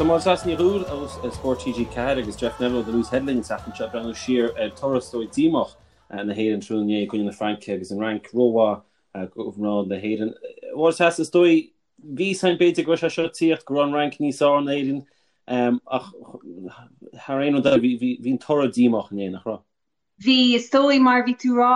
Tá Máire Treasa Ní Dhubhghaill ó Spórt TG4 agus Jeff Neville ó The Loose Head linn an tseachtain seo ag breathnú siar ar toradh is dóigh díomách na hÉireann tráthnóna inné i gcoinne na Fraince agus an Fhrainc rómhaith do mhná na hÉireann. Máire Treasa, is dóigh bhí a fhios againn b'fhéidir go raibh sé seo ag tíocht go raibh an Fhrainc níos fearr ná Éirinn ach thar aon rud eile bhí an toradh díomách inné, nach raibh? Bhí, is dóigh, mar a bhí tú rá,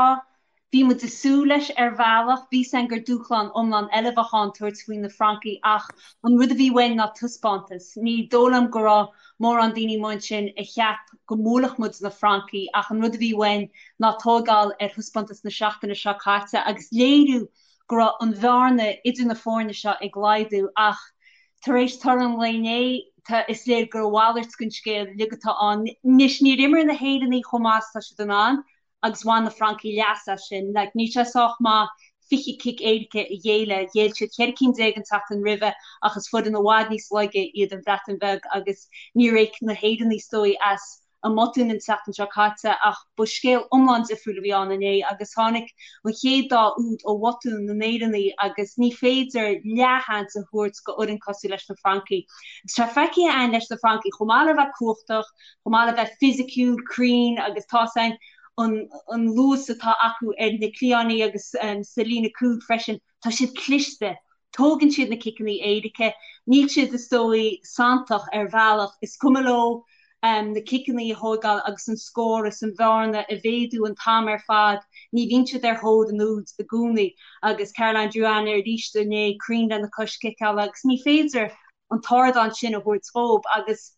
bhí muid ag súil leis ar bhealach. Bhí a fhios againn gur dúshlán iomlán eile a bheadh ann tabhairt faoi na Francaigh ach an rud a bhí uainn ná taispeántas. Ní dóigh liom go raibh mórán daoine amuigh ansin a cheap go mbuailfeadh muid na Francaigh ach an rud a bhí uainn ná tóigeáil ar thaispeántas na seachtaine seo caite agus léiriú go raibh an bhearna idir na foirne seo ag laghdú ach tar éis toradh an lae inné, tá, is léir gur a mhalairt den scéal uilig atá ann. Anois, níor imir na hÉireannaigh chomh maith is atá siad in ann agus bhain na Francaigh leas as sin. Like, níl sé sách maith 20 cic éirice a ghéilleadh. Ghéill siad 14 cinn an tseachtain roimhe ach is foireann i bhfad níos laige iad an Bhreatain Bheag agus níor íoc na hÉireannaigh is dóigh as a mbotúin an tseachtain seo caite ach ba scéal iomlán difriúil a bhí ann inné agus tháinig an chéad dá úd ó bhotún na nÉireannaigh agus ní féidir leathsheans a thabhairt go fhoireann cosúil leis na Francaigh. Agus tá feicthe againn leis na Francaigh, chomh maith le bheith cumhachtach, chomh maith le bheith fisiciúil, cruinn agus tá's againn an an luas atá acu ar na cliatháin agus sa líne cúil freisin, Tá siad cliste. Tógann siad na ciceanna éirice. Níl siad, is dóigh, santach ar bhealach. Is cuma leo na ciceanna a thóigeáil agus an scór is an bhearna a mhéadú an t-am ar fad. Ní bhíonn siad ar thóir an úid i gcónaí. Agus Caroline Drouin arís inné, cruinn lena cois ciceála agus ní féidir an t-ardán sin a thabhairt dhóibh. Agus.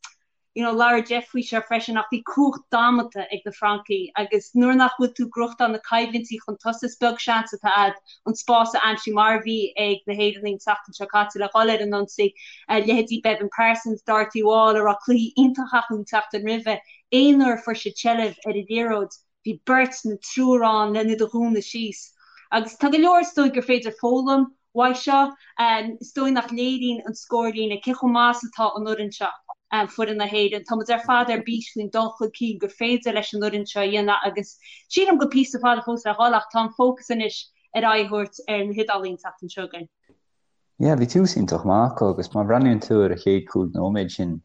you know labhair Jeff faoi seo freisin ach bhí cumhacht damanta ag na Francaigh agus nuair nach bhfuil tú ag gnóthachtáil na coimhlintí chun tosaigh is beag seans atá a'd an spás a aimsiú mar a bhí ag na hÉireannaigh an tseachtain seo caite le dhul ar an ionsaí. Leithéidí Beibhinn Parsons, Dorothy Wall a raibh cluichí iontach acu an tseachtain roimhe, aon uair a fuair siad seilbh ar an liathróid bhí beirt nó triúr ann len iad a dhúnadh síos. Agus tá go leor is dóigh gur féidir foghlaim uaidh seo. Is dóigh nach léiríonn an scórlíne cé chomh maith is atá an fhoireann seo, foireann na hÉireann. Tá muid ar fad ar bís faoin dul chun cinn gur féidir leis an fhoireann seo a dhéanamh agus sílim go píosa fada fós le dhul ach tá an fócas anois ar aghaidh a thabhairt ar na hIodálaigh an tseachtain seo chugainn. Yeah, bhí tús iontach maith acu agus má bhreathnaíonn tú ar an chéad 5 nóiméad sin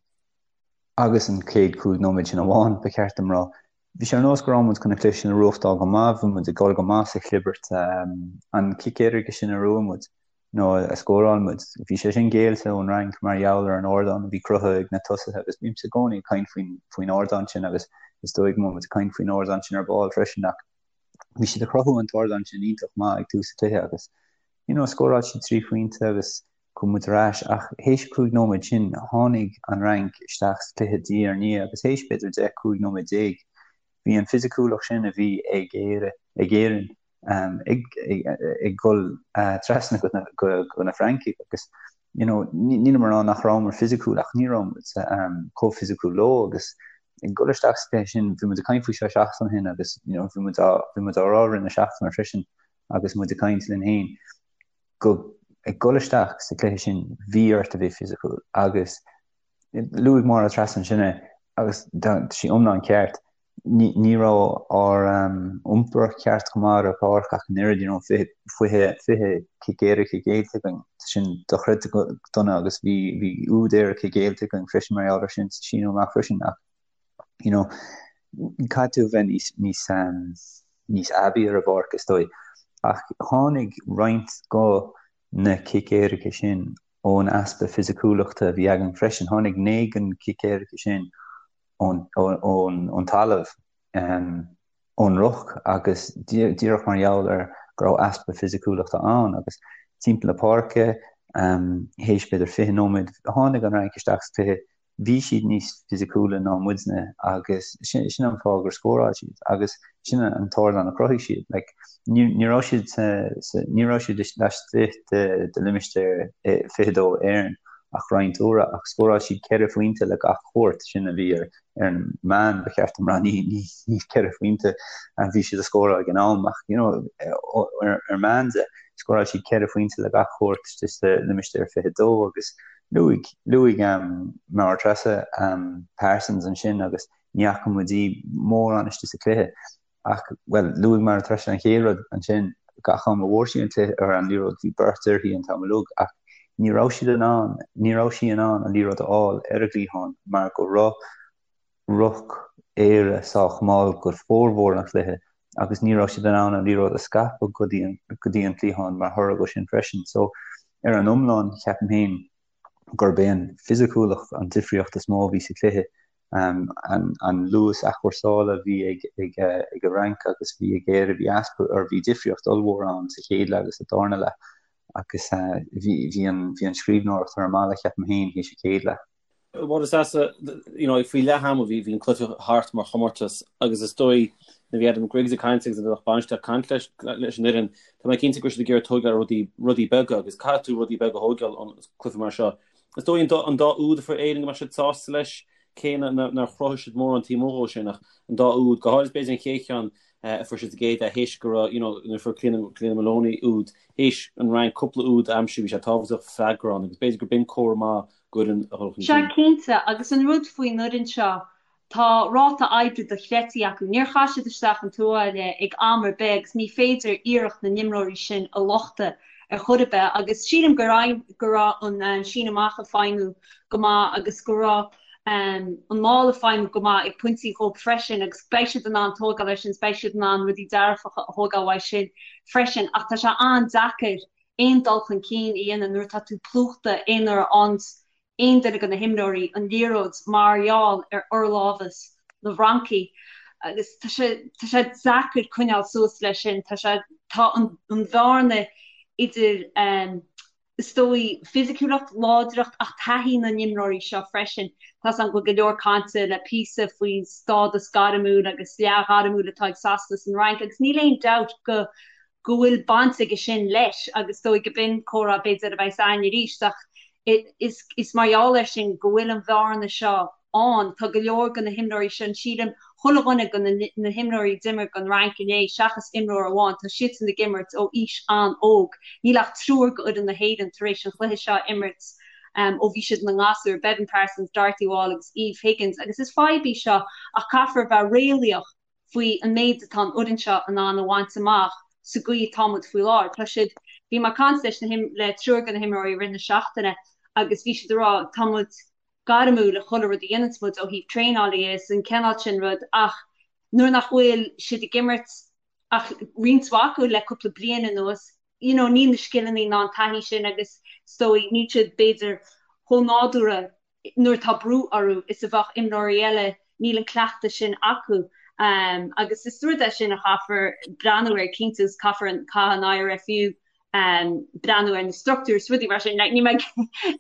agus an chéad 5 nóiméad sin amháin, ba cheart dom rá, Bhí sé ar nós go raibh muid chun an cluiche sin a bhuachtáil go maith, bhí muid ag dul go maith sa chlibirt. An cic éirice sin a bhuaigh muid, nó a scóráil muid, bhí sé sin géillte ón Fhrainc mar gheall ar an ardán a bhí cruthaithe ag na tosaithe agus bímse i gcónaí ag caint faoin faoin ardán sin agus is dóigh go mbeidh muid ag caint faoin ardán sin ar ball freisin ach bhí siad ag cruthú an t-ardán sin iontach maith ag tús an chluiche agus you know scóráil siad 3 phointe agus chuaigh muid ar ais ach théis 5 nóiméad sin tháinig an Fhrainc isteach sa chluiche diaidh ar ndiaidh agus théis b'fhéidir 10, 15 nóiméad bhí an fisiciúlacht sin a bhí ag Éire, ag Éirinn ag ag dul trasna go go na Francaigh agus you know nílim ag rá nach rabhamar fisiciúil ach ní raibh muid chomh fisiciúil leo agus ag dul isteach sa chluiche sin bhí muid ag caint faoi seo seachtain ó shin agus you know bhí muid á bhí muid á rá i rith na seachtaine freisin agus muid ag caint linn féin go ag dul isteach sa chluiche sin bhí ort a bheith fisiciúil agus luaigh Máire Treasa ansin é agus tá sí iomlán ceart. Ní, ní raibh ár um, iompar ceart go maith ar an pháirc ach an oiread, you know, 20, 20, 20 cic éirice géillte againn. Sin dochreidte go dona agus bhí, bhí úd éirice géillte againn freisin mar gheall air sin sa síneadh amach freisin ach you know, caithfidh tú a bheith níos, níos, um, níos aibí ar an bpáirc is dóigh. Ach tháinig roinnt go na cic éirice sin ón easpa fisiciúlachta a bhí againn freisin. Tháinig 9 den cic éirice sin ón, ón, ón, ón talamh, um, ón ruc agus díreach mar gheall ar go raibh easpa fisiciúlachta ann agus timpeall na páirce, um, théis b'fhéidir 20 nóiméad, tháinig an Fhrainc isteach sa chluiche bhí siad níos fisiciúla ná muidne agus sin sin an fáth gur scóráil siad agus sin an t-ardán a chruthaigh siad. Like, ní, ní raibh siad sa, sa, ní raibh siad laistigh de, de limistéar 22 Éireann ach roinnt uaire ach scóráil siad ceithre phointe le gach cuairt sin a bhí ar, ar an meán ba cheart dom rá ní, ní, ní ceithre phointe a bhí siad a scóráil ag an am ach you know, ar, ar meán de scóráil siad ceithre phointe le gach cuairt sa limistéar 22 agus Luaigh, luaigh Máire Treasa Parsons ansin agus ní fhaca muid í mórán istigh sa chluiche ach, bhuel, luaigh Máire Treasa an chéad rud ansin, gach am a bhfuair sí an cluiche, ar an liathróid, bhí beirt uirthi an t-am uilig ach Ní raibh siad in ann, ní raibh sí in ann an liathróid a fháil ar an gcliathán mar go raibh ruc Éire sách mall go formhór an chluiche agus ní raibh siad in ann an liathróid a scaipeadh go dtí an, go dtí an cliathán mar thoradh go sin freisin. So, ar an iomlán, ceapaim féin gurb é an fisiciúlacht an difríocht is mó a bhí sa chluiche. An luas athchúrsála a bhí ag ag an Fhrainc agus bhí ag Éire, bhí easpa, or bhí difríocht ollmhór ann sa chéad leath agus sa darna leath agus bhí bhí an bhí an scríbhneoireacht ar an mballa, ceapaim féin, théis an chéad leath. Máire Treasa, you know, faoi leath ama bhí bhí an cluiche thart mar chomórtas agus is dóigh nuair a bhí Adam Griggs ag caint agus an lucht bainistithe ag caint leis leis an fhoireann, tá mé cinnte go raibh siad ag iarraidh tógáil ar rudaí rudaí beaga agus caithfidh tú rudaí beaga a thógáil ón cluiche mar seo. Is dóigh an dá an dá úd a fuair Éirinn go mbeadh siad sásta leis, cé nár chruthaigh siad mórán taobh amuigh dhó sin ach an dá úd, go háirid b'fhéidir an chéad cheann a fuair siad sa gcéad leath théis go raibh, you know, nuair a fuair Cliodhna Cliodhna Moloney úd, théis an Fhrainc cúpla úd a aimsiú bhí sé tábhachtach freagra ann agus b'fhéidir gur b'in comhartha maith d'fhoireann a dhul chun Sea, cinn. cinnte, agus an rud faoin fhoireann seo, tá ráta oibre dochreidte acu. Níor chaith siad isteach an tuáille ag am ar bith agus ní féidir iarracht na n-imreoirí sin a lochtadh ar chor ar bith agus sílim go raibh go raibh an síneadh amach ag feidhmiú go maith agus go raibh an maul ag feidhmiú go maith ag pointí dhóibh freisin agus beidh siad in ann tógáil air sin is beidh siad in ann rudaí dearfacha a thógáil uaidh sin freisin ach tá sé an-deacair aon dul chun cinn a dhéanamh nuair atá tú plúchta aon uair a fhaigheanns aon duine de na himreoirí an liathróid mar gheall ar fhorlámhas na bhFrancaigh agus tá sé tá sé deacair coinneáil suas leis sin. Tá sé tá an an bhearna idir is dóigh fisiciúlacht, láidreacht ach taithí na n-imreoirí seo freisin. Tá 's agam go bhfuil go leor cainte le píosa faoin stádas gairmiúil agus leathghairmiúil atá ag Sasana is an Fhrainc agus níl aon dabht go go bhfuil baint aige sin leis agus is dóigh go b'in comhrá b'fhéidir a bheas againn arís ach is is mar gheall air sin go bhfuil an bhearna seo ann. Tá go leor de na himreoirí sin, sílim, chuile dhuine de na na himreoirí a d'imir don Fhrainc inné seachas imreoir amháin, tá siadsan ag imirt ó aois an-óg. Níl ach triúr d'fhoireann na hÉireann tar éis an chluiche seo a imirt ó bhí siad ina ngasúir, Beibhinn Parsons, Dorothy Wall agus Eve Higgins agus is fadhb í seo ach caithfear a bheith réalaíoch faoi an méid atá an fhoireann seo in ann a bhaint amach sa gcaoi atá muid faoi láthair. Tá siad, bhí mé ag caint leis na him, le triúr de na himreoirí i rith na seachtaine agus bhí siad ag rá tá muid gairmiúil i chuile rud a dhéananns muid ó thaobh traenála dhe is an cineál sin rud ach nuair nach bhfuil siad ag imirt ach roinnt mhaith acu le cúpla bliain anuas, you know níl na scileanna ná an taithí sin agus is dóigh níl siad b'fhéidir chomh nádúrtha nuair atá brú orthu is a bheadh imreoirí eile, níl an cleachtadh sin acu agus is rud é sin a chaithfear breathnú air cinnte agus caithfear an, caithfidh an IRFU breathnú ar na struchtúir is rudaí mar sin. Like, níl mé ag,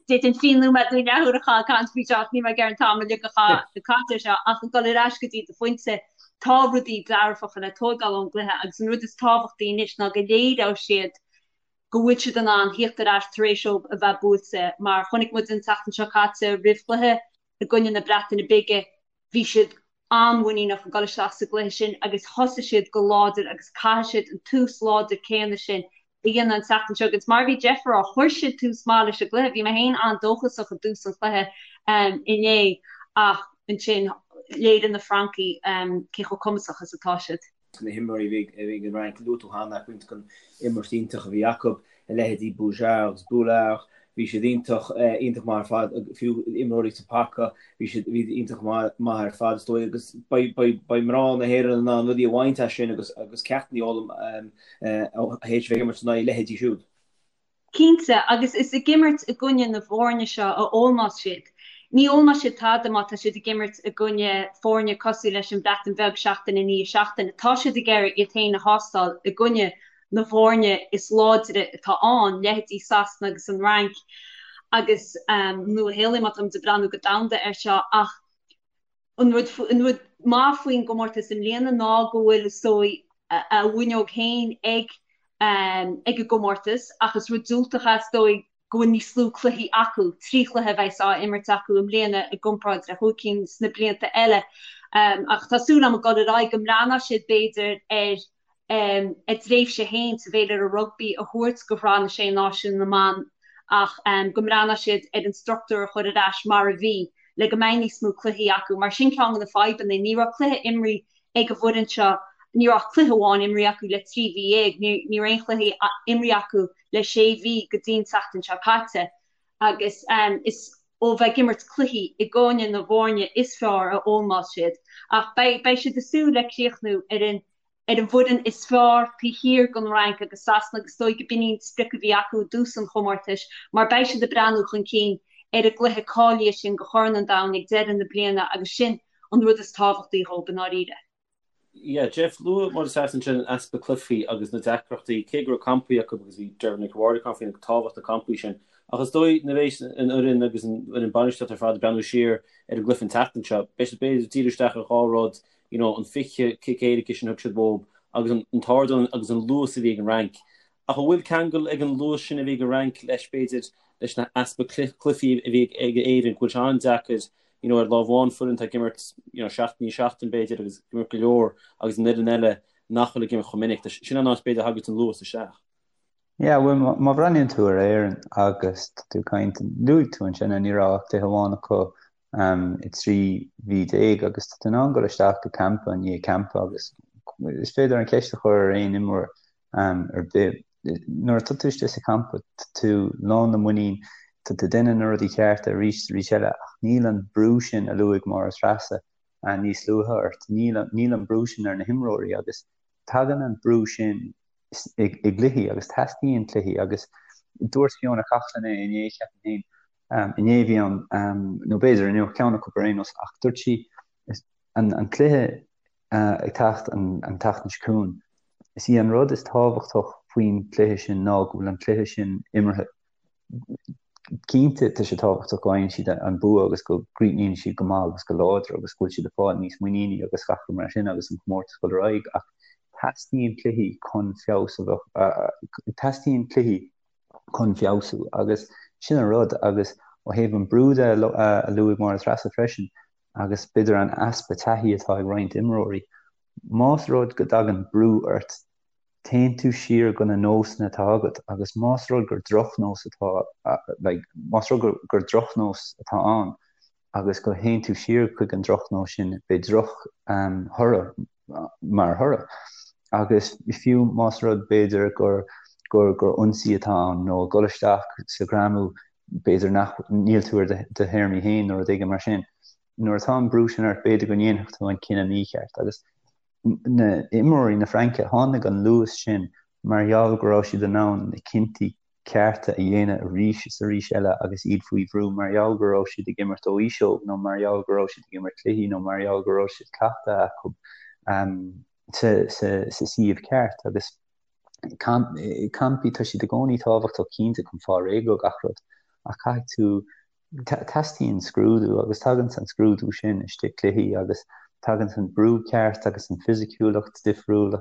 d'fhéadfainn fiche nóiméad nó leathuair a chaitheamh ag caint faoi seo ach níl mé ag iarraidh an t-am uilig a chaitheamh ag caint air seo ach ag dul ar ais go dtí do phointe, tá rudaí dearfacha le tóigeáil ón gcluiche agus an rud is tábhachtaí anois ná go léireoidh siad go bhfuil siad in ann thíocht ar ais tar éis dóibh a bheith buailte, mar chonaic muid an tseachtain seo caite roimh chluiche i gcoinne na Breataine Bige, bhí siad an-mhuiníneach ag dul isteach sa gcluiche sin agus thosaigh siad go láidir agus caithfidh siad an tús láidir céanna sin a dhéanamh an tseachtain seo agus mar a bhí Jeff a rá, chuir siad tús maith leis an gcluiche, bhí mé féin an-dóchasach i dtús an chluiche inné ach ansin léirigh na Francaigh cé chomh cumasach is atá siad. na himreoirí a bhí ag an Fhrainc, luaigh tú cheana roinnt den imirt iontach a bhí acu, a leithéidí Boujard agus Boulard, bhí siad iontach, iontach maith ar fad, fiú imreoirí sa paca, bhí siad, bhí iontach maith ar fad is dóigh agus beidh, beidh, beidh mná na hÉireann in ann rudaí a bhaint as sin agus, agus ceachtanna a fhoghlaim théis a bheith ag imirt in aghaidh a leithéidí siúd. Cinnte, agus is ag imirt i gcoinne na bhfoirne seo a fhoghlaimeos siad. Ní fhoghlaimeoidh siad tada má tá siad ag imirt i gcoinne foirne cosúil leis an Bhreatain Bheag seachtain i ndiaidh seachtaine. Tá siad ag iarraidh iad féin a thástáil i gcoinne na bhfoirne is láidre atá ann, leithéidí Sasana agus an Fhrainc agus Nua-Shéalainn má táimid ag breathnú go domhanda air seo ach An rud an rud maith faoin gcomórtas i mbliana ná go bhfuil, is dóigh, a bhfuinneog féin ag ag an gcomórtas ach is rud diúltach é, is dóigh, go bhfuil níos lú cluichí acu, 3 chluiche a bheas á imirt acu i mbliana i gcomparáid le chúig cinn sna blianta eile. Ach tá súil agam ag dul ar aghaidh go mbreathnóidh siad, b'fhéidir, ar a dtréimhse féin sa bhféilire rugbaí a thabhairt do Shraith na Sé Náisiún na mBan ach go mbreathnóidh siad ar an struchtúr a chur ar ais mar a bhí le go mbeidh níos mó cluichí acu mar sin ceann de na fadhbanna. Ní raibh cluiche imrithe ag an bhfoireann seo, ní raibh ach cluiche amháin imrithe acu le 3 mhí dhéag, ní raibh aon chluiche imrithe acu le sé mhí go dtí an tseachtain seo caite. Agus is ó bheith ag imirt cluichí i gcoinne na bhfoirne is fearr a fhoghlaimeos siad. Ach beidh siad ag súil le críochnú ar an ar an bhfoireann is fearr taobh thiar den Fhrainc agus Sasana agus is dóigh go b'in í an sprioc a bhí acu i dtús an chomórtais mar beidh siad ag breathnú chun cinn ar an gcluiche cáilithe sin do Chorn an Domhain ag deireadh na bliana agus sin an rud is tábhachtaí dhóibh i ndáiríre. Yeah, Jeff, luaigh Máire Treasa ansin an easpa cluichí agus na deacrachtaí, cé go raibh campaí acu agus bhí Deirbhile Nic an Bhaird ag caint faoin tábhacht na campaí sin. Ach is dóigh nuair a bheas an fhoireann agus an fhoireann bainistíochta ar fad ag breathnú siar ar an gcluiche an tseachtain seo, beidh siad b'fhéidir ag díriú isteach ar dhá rud, you know, an 20 cic éirice sin a thug siad uathu agus an t-ardán agus an luas a bhí ag an Fhrainc. Ach an bhfuil ceangal ag an luas sin a bhí ag an Fhrainc leis, b'fhéidir, leis na easpa cluichí a bhí ag Éirinn, go bhfuil sé an-deacair, you know, ar lámh amháin foireann atá ag imirt, you know, seachtain i ndiaidh seachtain, b'fhéidir, agus ag imirt go leor, agus an fhoireann eile nach bhfuil ag imirt chomh minic. Sin an áit, b'fhéidir, a thagann an luas isteach. Yeah, bhuel, má bhreathnaíonn tú ar Éirinn agus tá tú ag caint, luaigh tú ansin, ní raibh ach cluiche amháin acu i 13 mhí agus tá tú in ann dul isteach go campa i ndiaidh campa agus is féidir an cheist a chur ar aon imreoir ar bith. Nuair atá tú istigh sa champa, tá tú lán le muinín, tá tú ag déanamh na rudaí cearta arís is arís eile ach níl an brú sin a luaigh Máire Treasa níos luaithe ort, níl níl an brú sin ar na himreoirí agus tagann an brú sin i gcluichí agus teastaíonn cluichí agus dúirt Fiona Coghlan é inné, ceapaim féin, Inné a bhí ann, nó b'fhéidir inniu, ceann acu ar aon nós, ach dúirt sí, an cluiche ag teacht an tseachtain seo chugainn, is í an rud is tábhachtach faoin gcluiche sin ná go bhfuil an cluiche sin imeartha. Cinnte, tá sé tábhachtach go bhfaigheann siad an bua agus go gcríochnaíonn siad go maith agus go láidir agus go bhfuil siad ag fáil níos muiníní agus gach rud mar sin agus an comórtas dul ar aghaidh ach teastaíonn cluichí chun feabhas a bheith, teastaíonn cluichí chun feabhsú agus sin an rud agus ó thaobh an brú de a luaigh Máire Treasa freisin agus b'fhéidir an easpa taithí atá ag roinnt imreoirí, más rud go dtagann brú ort téann tú siar go na nósanna atá agat agus más rud gur drochnós atá like más rud gur drochnós atá ann agus go théann tú siar chuig an drochnós sin beidh droch thoradh mar thoradh. Agus fiú más rud b'fhéidir gur gur gur ionsaí atá ann nó ag dul isteach sa ghreamú b'fhéidir nach níl tú ar do théarmaí féin nó rud éigin mar sin. Nuair atá an brú sin ort b'fhéidir go ndéanfadh tú an cinneadh mícheart. Agus na imreoirí na Fraince tháinig an luas sin mar gheall go raibh siad in ann na cinntí cearta a dhéanamh arís is arís eile agus iad faoi bhrú mar gheall go raibh siad ag imirt ó aois óg nó mar gheall go raibh siad ag imirt cluichí nó mar gheall go raibh siad cleachtadh acu sa suíomh ceart agus campaí tá siad i gcónaí tábhachtach cinnte chun fáil réidh go gach rud ach caithfidh tú Teastaíonn scrúdú agus tagann an scrúdú sin istigh cluichí agus tagann an brú ceart agus an fisiciúlacht difriúil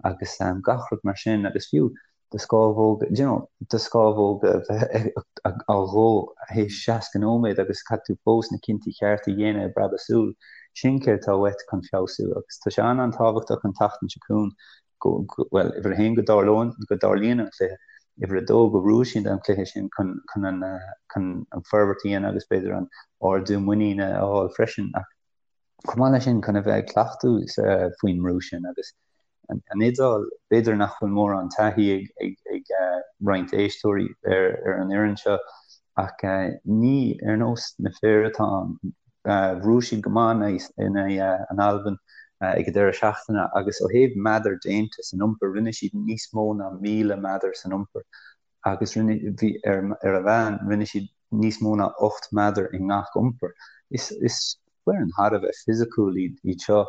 agus gach rud mar sin agus fiú do scámhóga, you know, do scámhóga a bheith á dhó théis 60 nóiméad agus caithfidh tú fós na cinntí cearta a dhéanamh i bpreabadh súl. Sin céard atá uait chun feabhsú agus tá sé an-an-tábhachtach an tseachtain seo chugainn go, bhuel, uimhir a haon go dtarlóinn, go dtarlaíonn an cluiche, uimhir a dó go bhfuair siad an cluiche sin chun, chun an, chun an forbairt a dhéanamh agus b'fhéidir an ardú muiníne a fháil freisin ach chomh maith leis sin chun a bheith ag cleachtadh faoin mbrú sin agus an, an Iodáil, b'fhéidir nach bhfuil mórán taithí ag, ag, ag roinnt éisteoirí ar, ar an fhoireann seo ach ní ar nós na fir atá ann. Bhuaigh siad go maith in aghaidh an Albain ag an deireadh seachtaine agus ó thaobh meadar déanta san iompar, rinne siad níos mó ná 1,000 meadar san iompar agus rinne, bhí, ar ar a mheán, rinne siad níos mó ná 8 meadar i ngach iompar. Is, is foireann thar a bheith fisiciúil iad, iad seo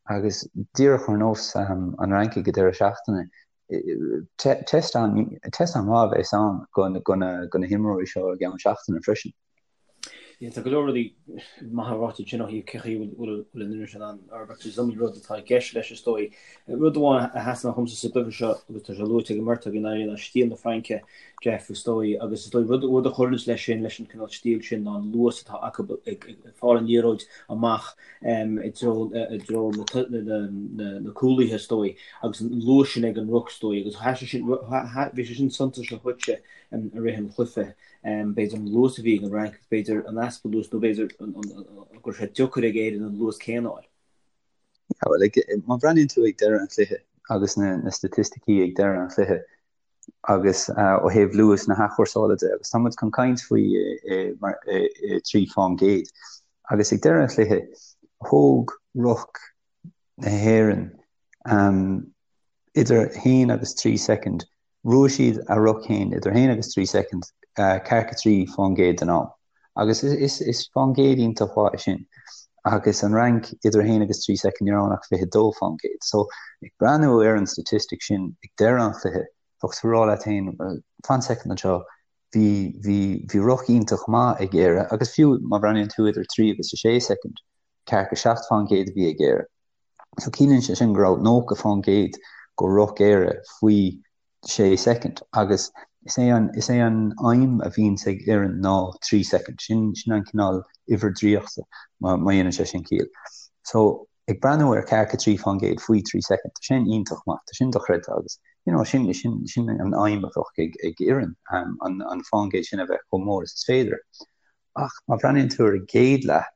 agus díreach ar nós an Fhrainc ag an deireadh seachtaine, test test an-mhaith a bheas ann go na himreoirí seo i gceann seachtaine freisin. Tá go leor rudaí maithe ráite ansin ó thaobh cé chaoi a bhfuil an fhoireann sin in ann forbairt. Is iomaí rud atá i gceist leis is dóigh. Rud amháin a sheasann amach dhomsa sa gcluiche seo agus tá sé luaite ag an mbeirt againn ná stíl na Fraince, Jeff, is dóigh. Agus is dóigh rud a chuireanns leis sin, leis an cineál stíl sin ná an luas atá acu ag fáil an liathróid amach i dtreo na cúlaithe is dóigh agus an luas sin ag an ruc is dóigh agus bhí sé sin suntasach dhuitse i rith an chluiche. B'fhéidir an luas a bhí ag an Fhrainc agus b'fhéidir an easpa luais nó b'fhéidir go raibh sé deacair ag Éirinn an luas céanna a fháil. Yeah, well, má bhreathnaíonn tú ag deireadh an chluiche agus na, na staitisticí ag deireadh an chluiche, Agus ó thaobh luas na hathchúrsála de, agus tá muid chun caint faoi i 3 fán gcéad. Agus ag deireadh an chluiche, thóg ruc na hÉireann idir 1 agus 3 soicind Bhuaigh siad a ruc féin idir 1 agus 3 soicind, ceathracha 3 fán gcéad den am. Agus is fán gcéad iontach mhaith é sin. Agus an Fhrainc idir 1 agus 3 soicind ní raibh ann ach 22 fán gcéad. So, ag breathnú ar an statistic sin ag deireadh an chluiche, bheadh tú ag rá leat féin, well, fan soicind anseo, bhí, bhí, bhí ruc iontach maith ag Éire agus fiú má bhreathnaíonn tú idir 3 agus 6 soicind, ceathracha 7 fán gcéad a bhí ag Éire. So ciallaíonn sé sin go raibh 90 fán gcéad go ruc Éire faoi 6 soicind agus is é an, is é an aidhm a bhíonns ag fhoireann ná 3 soicind. Sin, sin an cineál uimhir draíochta má, má dhéanann sé sin ciall. So ag breathnú ar ceathracha 3 fán gcéad faoi 3 soicind, tá sin iontach maith, tá sin dochreidte agus you know, sin, sin, sin an aidhm a bheadh ag, ag fhoireann, an, an fán gcéad sin a bheith chomh mór is is féidir. Ach má bhreathnaíonn tú ar an gcéad leath,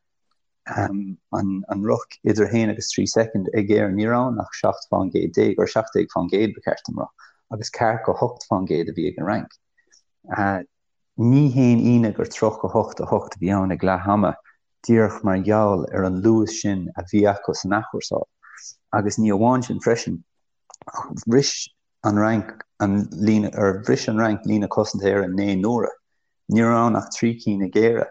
an ruc idir 1 agus 3 soicind ag Éirinn, ní raibh ann ach 17 fán gcéad, or 17 fán gcéad ba cheart dom rá, agus ceathracha 8 fán gcéad a bhí ag an Fhrainc. Ní haon ionadh gur 38 8 a bhí ann ag leath ama, díreach mar gheall ar an luas sin a bhí acu san athchúrsáil. Agus ní amháin sin freisin, ach bhris an Fhrainc an líne, or bhris an Fhrainc líne cosanta Éireann 9 n-uaire. Ní raibh ann ach 3 cinn ag Éire.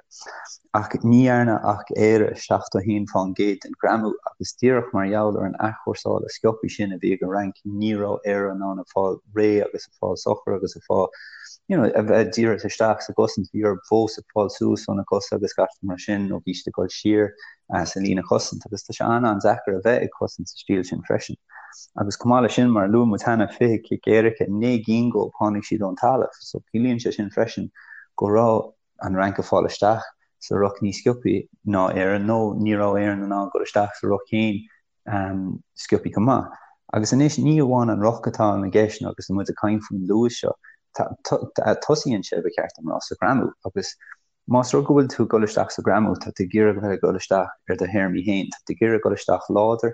Ach ní dhearna ach Éire 71 fán gcéad den ghreamú agus díreach mar gheall ar an athchúrsáil sciobtha sin a bhí ag an Fhrainc ní raibh Éire in ann a fáil réidh agus a fáil socair agus a fáil you know a bheith díreach isteach sa gcosaint. Bhí orthu fós ag fáil suas óna cosa agus gach rud mar sin nó bhí siad ag dul siar sa líne chosaint agus tá sé an-an-deacair a bheith ag cosaint sa stíl sin freisin. Agus chomh maith leis sin, mar a luaigh muid cheana, 20 cic éirice, 9 gcinn dhóibh tháinig siad ón talamh. So ciallaíonn sé sin freisin go raibh an Fhrainc ag fáil isteach sa ruc níos sciobthaí ná Éire nó ní raibh Éirinn in ann dul isteach sa ruc féin sciobthaí chomh maith. Agus anois ní amháin an ruc atá i gceist agus muid ag caint faoin luas seo, tosaíonn sé, ba cheart dom rá, sa ghreamú agus Más rud go bhfuil tú ag dul isteach sa ghreamú, tá tú ag iarraidh a bheith ag dul isteach ar do théarmaí féin, tá tú ag iarraidh dul isteach láidir,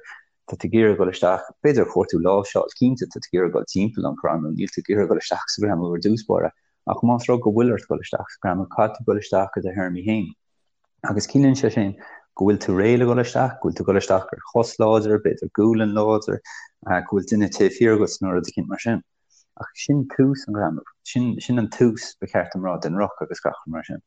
tá tú ag iarraidh dul isteach, b'fhéidir ag cuartú láimhseáil, cinnte, tá tú ag iarraidh dul timpeall an ghreamú, níl tú ag iarraidh dul isteach sa ghreamú ar dtús báire, ach más rud go bhfuil ort dul isteach sa ghreamú, caithfidh tú dul isteach ar do théarmaí féin. Agus ciallaíonn sé sin go bhfuil tú réidh le dul isteach, go bhfuil tú ag dul isteach ar chos láidir, b'fhéidir gualainn láidir, go bhfuil duine taobh thiar agat nó rud eicínt mar sin. Ach sin tús an ghreamú. Sin, sin an tús, ba cheart dom rá, den ruc agus gach rud mar sin.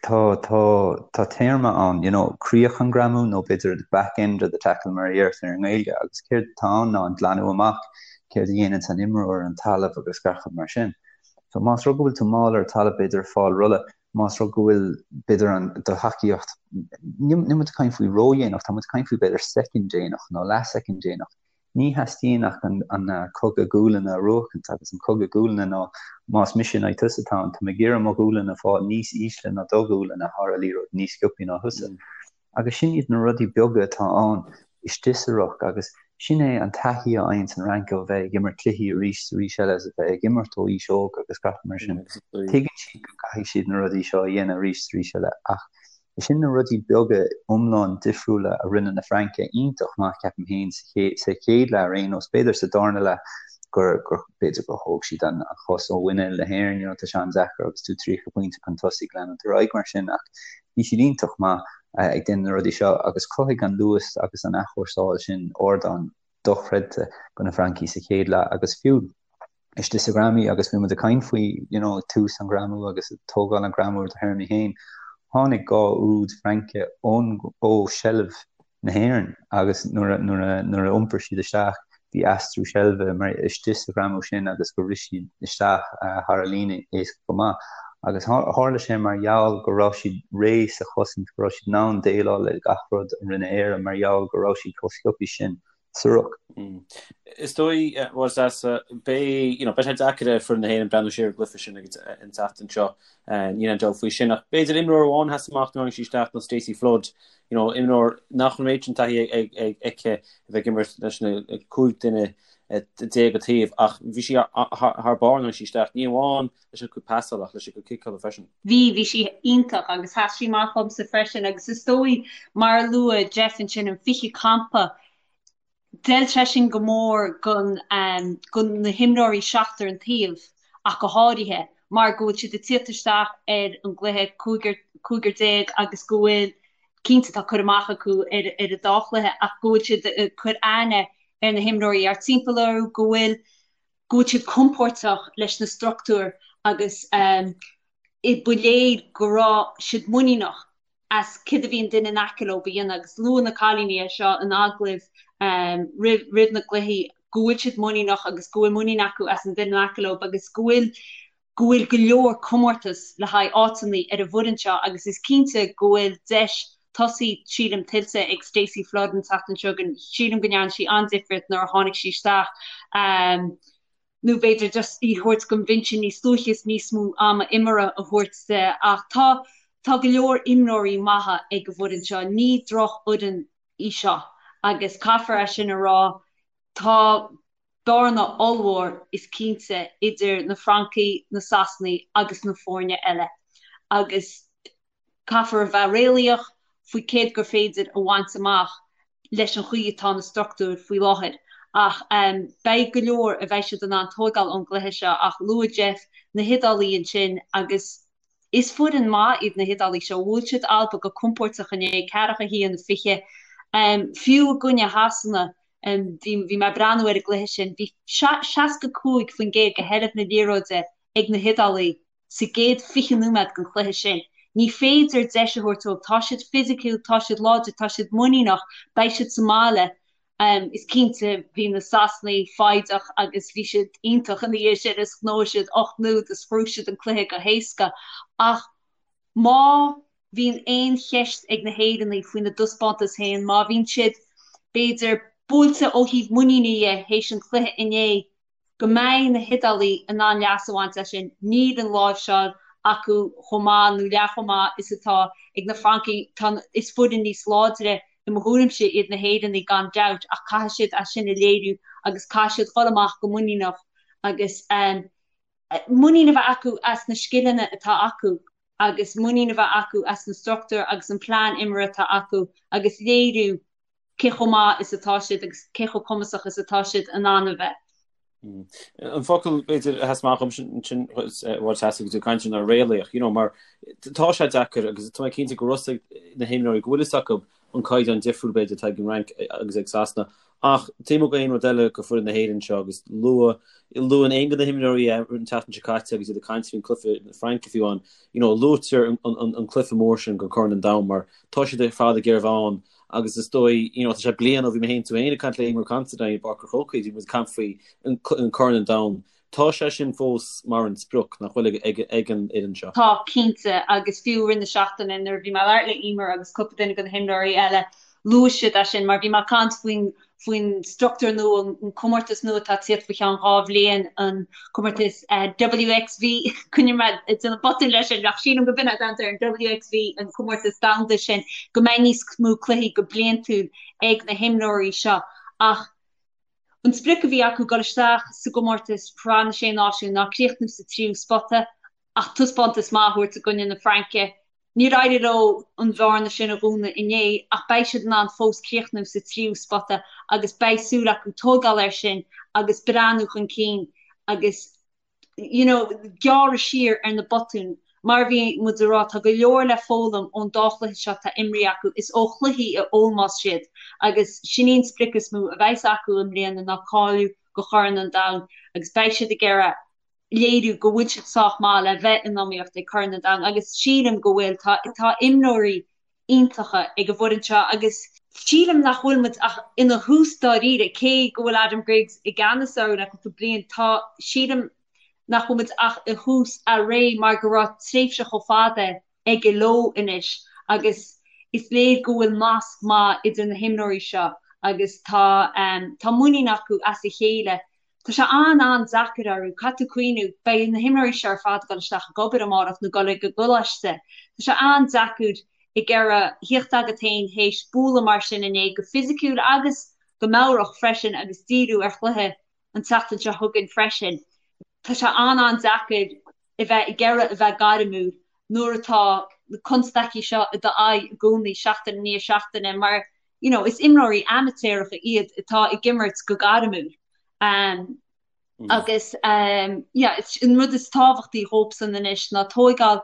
Tá, tá, tá téarma ann, you know, críoch an ghreamú nó b'fhéidir the back end of the tackle mar a deirtear i nGaeilge agus céard atá ann ná an glanadh amach, céard a dhéananns an imreoir ar an talamh agus gach rud mar sin. So más rud go bhfuil tú mall ar an talamh b'fhéidir ag fáil rolla, más rud go bhfuil b'fhéidir an, do thacaíocht, níl, níl muid ag caint faoi ródhéanach, tá muid ag caint faoi b'fhéidir soicind déanach nó leathshoicind déanach. Ní theastaíonn ach an cogadh gualainne a bhuachaint agus an cogadh gualainne ná más mise in aghaidh tusa atá ann, tá mé ag iarraidh mo ghualainn a fháil níos ísle ná do ghualainn a thar an liathróid níos sciobthaí ná thusa. Agus sin iad na rudaí beaga atá ann istigh sa ruc agus sin é an taithí a fhaigheanns an Fhrainc ó bheith ag imirt cluichí arís is arís eile is a bheith ag imirt ó aois óg agus gach mar sin. Tuigeann siad go gcaithfidh siad na rudaí seo a dhéanamh arís is arís eile ach Sin na rudaí beaga iomlán difriúla a rinne na Francaigh iontach maith, ceapaim féin, sa chéad leath ar aon nós. B'fhéidir sa darna leath gur, gur, b'fhéidir gur thóg siad an chos ó mhuinéal na hÉireann, you know, tá sé an-deacair agus tú 30 pointe chun tosaigh leanúint ar aghaidh mar sin ach bhí siad iontach maith ag déanamh na rudaí seo agus chruthaigh an luas agus an athchúrsáil sin ardán dochreidte do na Francaigh sa chéad leath agus fiú istigh sa ghreamú agus bhí muid ag caint faoi you know tús an ghreamú agus ag tógáil an ghreamú ar do théarmaí féin, tháinig 2 úd Fraince ón ó seilbh na hÉireann agus nuair a nuair a nuair a iompair siad isteach bhí aistriú seilbhe mar istigh sa ghreamú sin agus gur rith siad isteach thar an líne éasca go maith agus tharla sé mar gheall go raibh siad réidh sa chosaint go raibh siad in ann déileáil le gach rud a rinne Éire mar gheall go raibh siad chomh sciobtha sin sa ruc. Is dóigh, bhuel, is beidh, you know, beidh sé deacair ar foireann na hÉireann breathnú siar ar an gcluiche sin agus an tseachtain seo, níl aon dabht faoi sin. Ach b'fhéidir imreoir amháin a sheas amach nuair a tháinig sí isteach ná Stacey Flood, you know, imreoir nach raibh an méid sin taithí aici a bheith ag imirt leis na 15 duine an taobh ach bhí sí thar barr nuair a tháinig sí isteach, ní amháin leis an cuid pasála ach leis an cuid ciceála freisin. Bhí, bhí sí iontach agus sheas sí amach dhomsa freisin agus is dóigh, mar a luaigh Jeff ansin, an 20 campa. D'fheil sé sin go mór gon go na himreoirí seachtar an taobh ach go háirithe mar go bhfuil siad ag tíocht isteach ar an gcluiche cúigear agus go bhfuil, cinnte tá cur amach acu ar ar an dá chluiche ach go bhfuil siad ag cur aithne ar na himreoirí thart timpeall orthu, go bhfuil go bhfuil siad compóirteach leis na struchtúir agus ba léir go raibh siad muiníneach as céard a bhí an duine in aice leo a dhéanamh agus luaigh na cailíní é seo in agallaimh roimh na gcluichí go bhfuil siad muiníneach agus go bhfuil muinín acu as an duine in aice leo agus go bhfuil go bhfuil go leor comórtas le haghaidh áiteanna ar an bhfoireann seo agus is cinnte go bhfuil deis tosaigh sílim tuillte ag Stacey Flood an tseachtain seo chugainn. Sílim go ndearna sí an-difríocht nuair a tháinig sí isteach. Nó b'fhéidir just í thabhairt don bhinse níos luaithe is níos mó ama imeartha a thabhairt di. Ach tá tá go leor imreoirí maithe ag an bhfoireann seo. Ní drochfhoireann í seo agus caithfear é sin a rá. Tá bearna ollmhór is cinnte idir na Francaigh, na Sasanaigh agus na foirne eile agus Caithfear a bheith réalaíoch faoi céard gur féidir a bhaint amach leis an chaoi atá na struchtúir faoi láthair. Ach beidh go leor a bheidh siad in ann tóigeáil ón gcluiche seo ach luaigh Jeff na hIodálaigh ansin agus is foireann maith iad na hIodálaigh seo. Bhuail siad Alba go compóirteach inné, 41, 20. Fiú i gcoinne Shasana, bhí mé ag breathnú ar an gcluiche sin, bhí 65% de sheilbh na liathróide ag na hIodálaigh. sa gcéad 20 nóiméad den chluiche sin. Ní féidir deis a thabhairt dóibh. Tá siad fisiciúil, tá siad láidir, tá siad muiníneach, beidh siad sa mbaile. Is cinnte, bhí na Sasanaigh foighdeach agus bhí siad iontach ina dhiaidh sin is ghnóthaigh siad 8 n-úd is ghnóthaigh siad an cluiche go héasca. Ach má bhíonn aon cheist ag na hÉireannaigh faoina dtaispeántas féin, má bhíonn siad, b'fhéidir, buailte ó thaobh muiníne dhe théis an chluiche inné, go mbeidh na hIodálaigh in ann leas a bhaint as sin. Níl an láimhseáil acu chomh maith nó leath chomh maith is atá ag na Francaigh. Tá, is foireann níos láidre i mo thuairimse iad na hÉireannaigh gan dabht ach caithfidh siad é sin a léiriú agus caithfidh siad dhul amach go muiníneach agus muinín a bheith acu as na scileanna atá acu agus muinín a bheith acu as na struchtúir agus an plean imeartha atá acu agus léiriú cé chomh maith is atá siad agus cé chomh cumasach is atá siad in ann a bheith. An focal, b'fhéidir, a sheas amach dhom sin agus tú ag caint ná réalaíoch, you know, mar tá sé deacair agus tá mé cinnte go raibh a fhios ag na himreoirí go bhfuil fhios acu an caighdeán difriúil b'fhéidir atá ag an Fhrainc agus ag Sasana ach taobh amuigh d'aon rud eile go foireann na hÉireann seo agus luadh luann aon de na himreoirí an tseachtain seo caite agus iad ag caint faoin cluiche na Fraince fiú amháin, you know, luaitear an, an, an cluiche mór sin go Corn an Domhain mar tá siad ar fad ag iarraidh a bheith ann Agus is dóigh, you know, tá sé bliain ó bhí mé féin tú féin ag caint le Eimear Considine i bPáirc an Chrócaigh, bhí muid ag caint faoi an Corn an Domhain. Tá sé sin fós mar an sprioc, nach bhfuil, ag ag an fhoireann seo? Tá, cinnte, agus fiú i rith na seachtaine nuair a bhí mé ag labhairt le Eimear agus cúpla duine de na himreoirí eile, luaigh siad é sin mar bhí mé ag caint faoin faoin struchtúr nua, an comórtas nua atá ag tíocht faoi cheann 2 bhliain, an comórtas WXV, coinneoidh mé ag déanamh botún leis sin, ach sílim go b'in é an t-ainm air, an WXV, an comórtas domhanda sin, go mbeidh níos mó cluichí go bliantúil ag na himreoirí seo. Ach an sprioc a bhí acu dul isteach sa gcomórtas Sraith na Sé Náisiún ná críochnú sa tríú spota ach taispeántas maith a thabhairt i gcoinne na Fraince. Níor éirigh leo an bhearna sin a dhúnadh inné ach beidh siad in ann fós críochnú sa tríú spota agus beidh súil acu tógáil air sin agus breathnú chun cinn agus you know gearradh siar ar na botúin. Mar a bhí muid ag rá, tá go leor le foghlaim ón dá chluiche seo atá imrithe acu. Is ó chluichí a fhoghlaimeos siad agus sin í an sprioc is mó a bheas acu i mbliana ná cáiliú go Chorn an Domhain agus beidh siad ag iarraidh léiriú go bhfuil siad sách maith le bheith in iomaíocht ag Corn an Domhain agus sílim go bhfuil. Tá tá imreoirí iontacha ag an bhfoireann seo agus sílim nach bhfuil muid ach ina thús dáiríre, cé go bhfuil Adam Griggs i gceannas orthu le cúpla bliain, tá sílim nach bhfuil muid ach i thús a ré mar go raibh tréimhse chomh fada aige leo anois agus is léir go bhfuil nasc maith idir na himreoirí seo agus tá tá muinín acu as a chéile. Tá sé an-an-deacair orthu, caithfidh tú cuimhniú, beidh na himreoirí seo ar fad ag dul isteach ag obair amárach nó dul ag an gcoláiste. Tá sé an-deacair ag iarraidh thíocht agat féin théis bualadh mar sin inné, go fisiciúil agus go meabhrach freisin agus díriú ar chluiche an tseachtain seo chugainn freisin. Tá sé an-an-deacair a bheith ag iarraidh a bheith gairmiúil nuair atá na constaicí seo i d'aghaidh i gcónaí, seachtain i ndiaidh seachtaine, mar. You know, is imreoirí amaitéaracha iad atá ag imirt go gairmiúil. Um, mm. Agus um, yeah, an rud is tábhachtaí dhóibhsan anois ná tóigeáil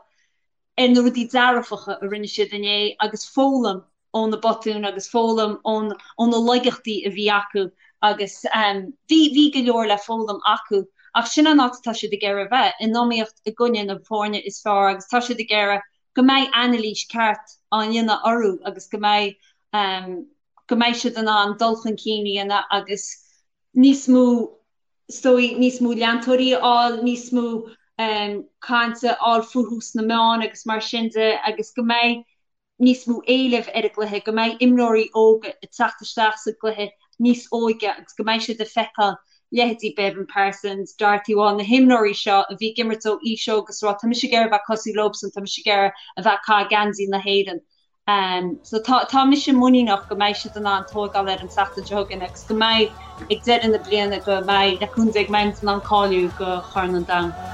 ar na rudaí dearfacha a rinne siad inné agus foghlaim ó na botúin agus foghlaim ó na laigeachtaí a bhí acu agus bhí, bhí go leor le foghlaim acu ach sin an áit atá siad ag iarraidh a bheith, in iomaíocht i gcoinne na foirne is fearr agus tá siad ag iarraidh go mbeidh anailís ceart á dhéanamh orthu agus go mbeidh, go mbeidh siad in ann dul chun cinn a dhéanamh agus níos mó is dóigh, níos mó leantóirí a fháil, níos mó cainte a fháil fúthu sna meáin agus mar sin de agus go mbeidh níos mó éilimh ar an gcluiche, go mbeidh imreoirí óga ag teacht isteach sa gcluiche níos óige agus go mbeidh siad ag feiceáil leithéidí Beibhinn Parsons, Dorothy Wall, na himreoirí seo a bhí ag imirt ó aois óg agus ag rá tá mise ag iarraidh a bheith cosúil leobsan, tá mise ag iarraidh a bheith ag caitheamh geansaí na hÉireann. So tá tá mise muiníneach go mbeidh siad in ann tóigeáil ar an tseachtain seo chugainn agus go mbeidh ag deireadh na bliana go mbeidh le cúnamh Dé go mbeidh muid in ann cáiliú go Chorn an Domhain.